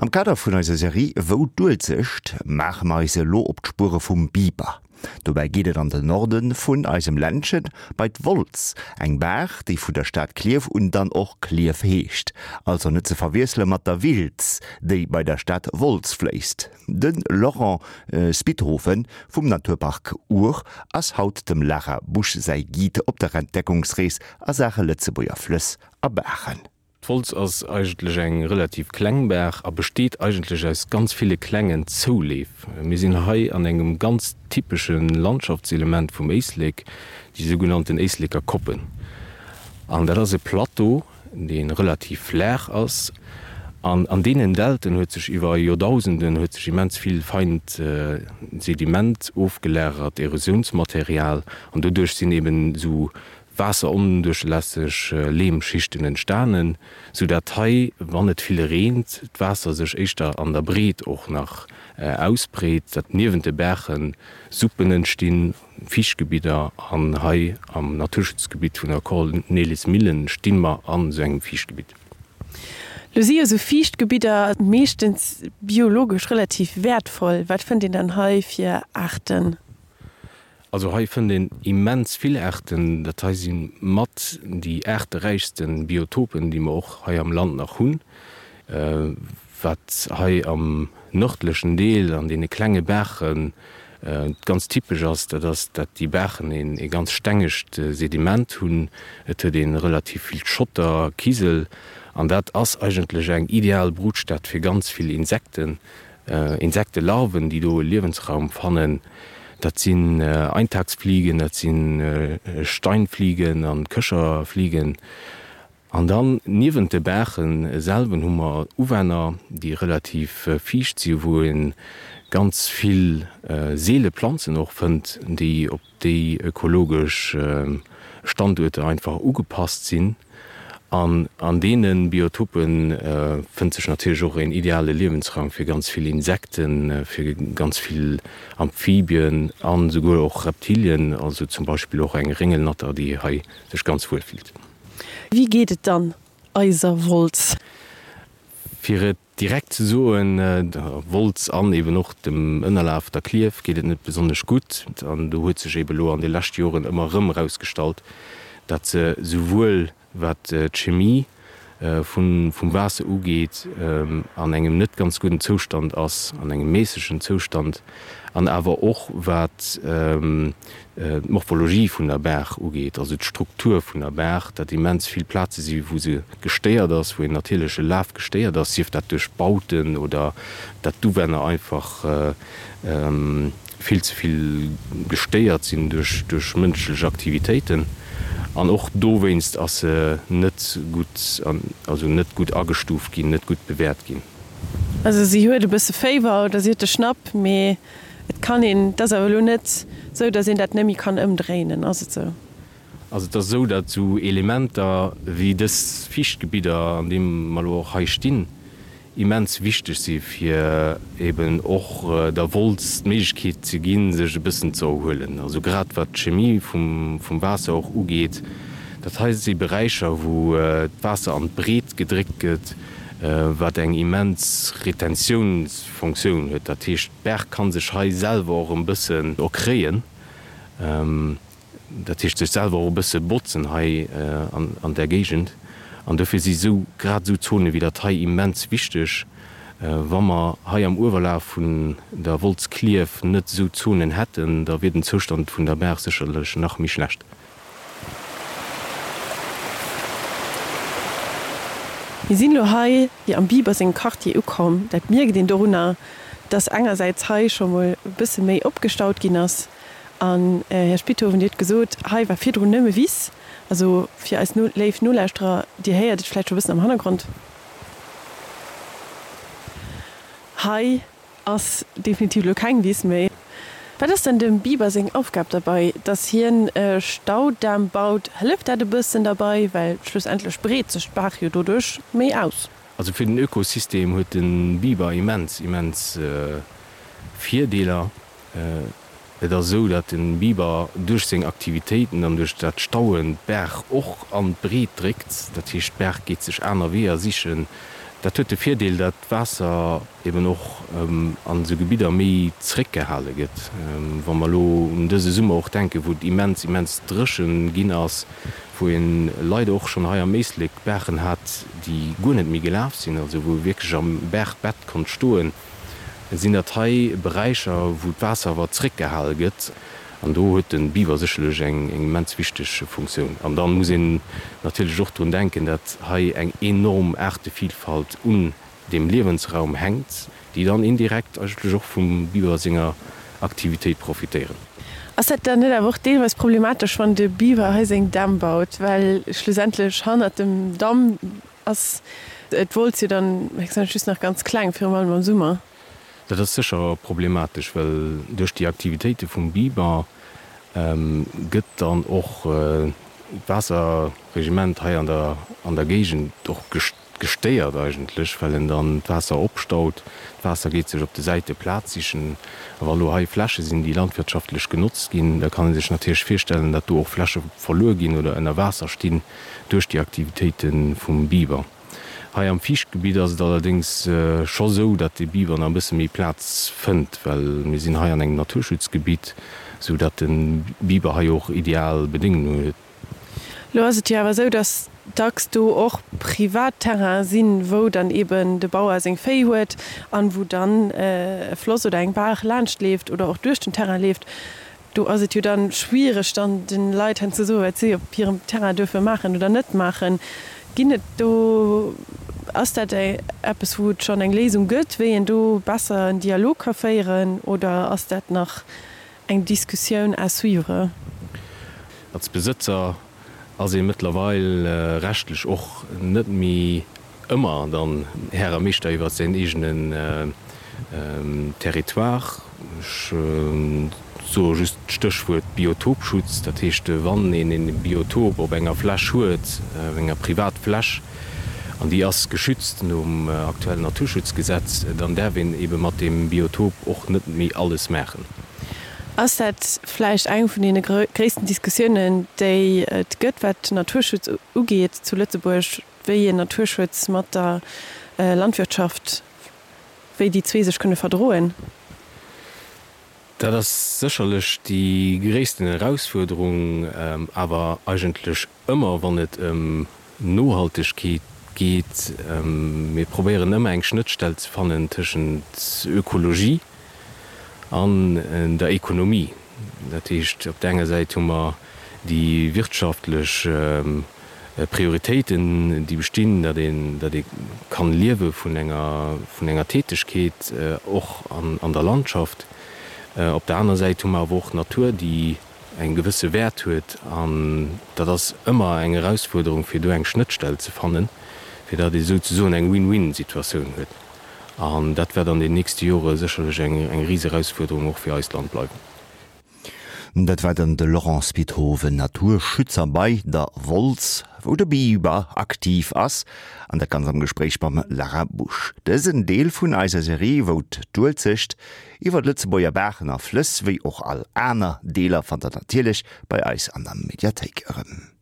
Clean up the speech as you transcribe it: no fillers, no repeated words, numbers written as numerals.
Am Kader vun eiser Serie Wou d'Uelzecht maache mer eis elo op d'Spuere vum Biber. Dobäi geet et an den Norde vun eisem Ländchen, bei d'Wolz, eng Baach, déi vun der Stad Klierf un dann och Klierf heescht. Also net ze verwiessele mat der Wiltz, déi bei der Stad Wolz fléisst. De Laurent Spithofen vum Naturpark Our ass haut dem Lara Busch säi Guide op der Entdeckungsrees a Saache Lëtzebuerger Flëss a Baachen. D'Wolz ass eigentlech eng relativ kleng Baach a besteet eigentlech aus ganz ville klengen Zouleef. Mir sinn hei an engem ganz typesche Landschaftselement vum Éislek, déi sougenannten Éisleker Koppen. An dat ass e Plateau, dee relativ flaach ass. An an deenen Dälten huet sech iwwer Joerdausenden huet sech immens vill feint Sediment ofgelagert, Erosiounsmaterial. An doduerch sinn eben esou waasseronduerchlässeg Leemschichten entstanen, sou dat hei, wann et vill reent, d'Waasser sech éischter an der Breet och nach ausbreet, dat niewent de Baache Suppen entstinn, Fiichtgebidder an hei am Naturschutzgebitt vun der Cornelismillen sti mer an sou engem Fiichtgebitt. Lo si jo sou Fiichtgebidder meeschtens biologesch relativ wäertvoll. Wat fënnt een dann hei fir Aarten? Also hei fënnt een immens vill Aarten. Dat hei si mat déi aarteräichste Biotopen, déi mer och hei am Land nach hunn. Wat hei am nërdlechen Deel an deene klenge Baache ganz typesch ass, dat ass, dat déi Baachen ee ganz stengegt Sediment hunn. Et huet ee relativ vill Schotter, Kisel an dat ass eigentlech eng ideal Brutstad fir ganz vill Insekten. Insektelarven, déi do e Liewensraum fannen. Dat sinn Eintagsfliegen, dat si Steinfliegen an Köcherfliegen. An dann niewent de Baache selwen hu mer Uwänner, déi relativ fiicht si wou ee ganz vill seele Planzen och fënnt, déi op déi ökologesch Standuerter einfach ugepasst sinn. An an deene Biotope fënnt sech natierlech och een ideale Liewensraum fir ganz vill Insekten, fir ganz vill Amphibien an esouguer och Reptilien, also zum Beispill och eng Réngelnatter, déi hei sech ganz wuel fillt. Wéi geet et dann eiser Wolz? Fir et Direkt ze soen, der Wolz an eben och dem Ënnerlaf, der Klierf, geet et net besonnesch gutt. An do huet sech eben elo an de leschte Joren ëmmer erëm erausgestallt, datt se souwuel wat d'Chemie vum Waasser ugeet, an engem net ganz gudden Zoustand ass, an engem méissegen Zoustand, an awer och wat d'Morphologie vun der Baach ugeet, also d'Struktur vun der Baach, dat immens vill Plaze si wou se gestéiert ass, wou een natierleche Laf gestéiert ass, sief dat duerch Bauten oder dat d'Uwänner einfach vill ze vill gestéiert sinn duerch mënschlech Aktivitéiten. An och dowéinst ass se net gutt, also net gutt agestuuft ginn, net gutt bewäert ginn. Also si huet e bësse Féiwer oder si huet de Schnapp, mee et kann een, et ass awer elo net esou, datt een dat net méi kann ëmdréinen, ass et esou? Also et ass esou, datt esou Elementer wéi dës Fiichtgebidder, an deem mer elo och hei stinn, immens wichteg si fir eben och der Wolz d'Méiglechkeet ze ginn, sech e bëssen ze erhuelen. Also grad wat d'Chemie vum Waasser och ugeet, dat hei si Beräicher, wou d'Waasser an d'Breet gedréckt gëtt, wat eng immens Retentiounsfonctioun huet. Dat heescht, d'Baach ka sech hei selwer och e bëssen erkréien. Dat heescht sech selwer och e bësse botzen hei an där Géigend. An dofir si sou grad esou Zone wéi dat hei immens wichteg. Wa mer hei am Uewerlaf vun der Wolz Klierf net esou Zonen hätten, da wier den Zoustand vun der Baach sécherlech nach méi schlecht. Mir sinn elo hei am Biber sengem Quartier ukomm. Dat mierkt een dorunner, dass engersäits hei scho mol e bësse méi opgestaut ginn ass. An, Här Spithoven, Dir hutt gesot, hei war virdrun nëmme Wiss. Also fir eis léif Nolauschterer, Dir héiert et vläicht scho e bëssen am Hannergrond, hei ass definitiv elo keng Wiss méi. Wat ass denn dem Biber seng Aufgab derbei? Dass hien e Staudamm baut, hëlleft dat e bëssen derbei? Well schlussendlech breet sech d'Baach jo doduerch méi aus. Also fir den Ökosystem huet de Biber immens, immens Virdeeler. Et ass esou, datt de Biber duerch seng Aktivitéiten an duerch dat Stauen d'Baach och an d'Breet dréckt. Dat heescht, d'Baach geet sech aner Weeër sichen. Dat huet de Virdeel, dat d'Waasser eben och an esou Gebidder méi zréckgehale gëtt. Wa mer elo un dëse Summer och denken, wou et immens, immens dréchen ginn ass, wou ee leider och schonn hei am Éislek Baachen hat, déi guer net méi gelaf sinn, also wou ee wierklech am Baachbett konnt stoen, sinn dat hei Beräicher, wou d'Waasser awer zréckgehale gëtt. An do huet de Biber sécherlech eng immens wichteg Funktioun. An da muss een natierlech och drun denken, datt hei eng enorm Aartevilfalt un deem Liewensraum hänkt, déi dann indirekt eigentlech och vum Biber senger Aktivitéit profitéieren. Ass dat dann net awer och deelweis problematesch, wann de Biber hei seng Dämm baut, well schlussendlech hannert dem Damm ass d'Wolz jo dann héchstwahrscheinlech just nach ganz kleng, virum allem am Summer? Dat ass sécher problematesch, well duerch déi Aktivitéite vum Biber gëtt dann och d'Waasserregiment hei an der an der Géigend och gestéiert eigentlech, well en dann d'Waasser opstaut. D'Waasser geet sech op de Säite Plaz sichen. A wa lo hei Fläche sinn, déi landwirtschaftlech genotzt ginn, da kann ee sech natierlech virstellen, datt do och Fläche verluer ginn oder ënner Waasser stinn duerch déi Aktivitéite vum Biber. Hei am Fiichtgebitt ass et allerdéngs scho sou, datt de Biber nach e bësse méi Plaz fënnt, well mir sinn hei an engem Naturschutzgebitt, sou datt de Biber hei och ideal Bedéngungen huet. Lo ass et jo awer sou, datt dacks do och privat Terrainen sinn, wou dann eben de Bauer seng Véi huet an wou dann e Floss oder eng Baach laanscht leeft oder och duerch den Terrain leeft. Do ass et jo dann schwiereg dann den Leit hen ze soen wat si op hirem Terrain duerfe maachen oder net maachen. Ginn et do, ass dat eppes wou et schonn eng Léisung gëtt, wéi een do besser en Dialog ka féieren oder ass dat nach eng Diskussioun à suivre? Als Besëtzer ass ee mëttlerweil rechtlech och net méi ëmmer dann Här a Meeschter iwwer säin eegenen Territoire. Ech soe just d'Stéchwuert Biotopschutz. Dat heescht, wann een e Biotop op enger Fläch huet, op enger Privatfläch, an déi ass geschützt nom aktuellen Naturschutzgesetz, dann däerf een ebe mat deem Biotop och net méi alles maachen. Ass dat vläicht eng vun deene gréissten Diskussiounen, déi et gëtt, wat den Naturschutz ugeet zu Lëtzebuerg, wéi een Naturschutz mat der Landwirtschaft, wéi déi zwee sech kënne verdroen? Dat ass sécherlech déi gréissten Erausfuerderung, awer eigentlech Ëmmer wann et ëm Nohaltegkeet geet, mir probéieren ëmmer eng Schnëttstell ze fannen tëschent Ökologie an der Ekonomie. Dat heescht, op der enger Säit hu mer déi wirtschaftlech Prioritéiten, déi bestinn, datt een, datt ee kann liewe vun enger, vun enger Tätegkeet och an der Landschaft. Op der aner Säit hu mer awer och d'Natur, déi eng gewësse Wäert huet an dat ass ëmmer eng Erausfuerderung fir do eng Schnëttstell ze fannen, fir datt ee souzesoen eng Win-win-Situatioun huet. An dat wäert an den nächste Jore sécherlech eng eng Riserausfuerderung och fir eist Land bleiwen. Dat war dann de Laurent Spithoven, Naturschützer bei der Wolz, wou de Biber aktiv ass, an dat Ganzt am Gespréich mam Lara Busch. Dësen Deel vun eiser Serie, wou d'Uelzecht Iwwer d'Lëtzebuerger Baachen a Flëss, wéi och all aner Deeler fannt der natierlech bei eis an der Mediathéik erëm.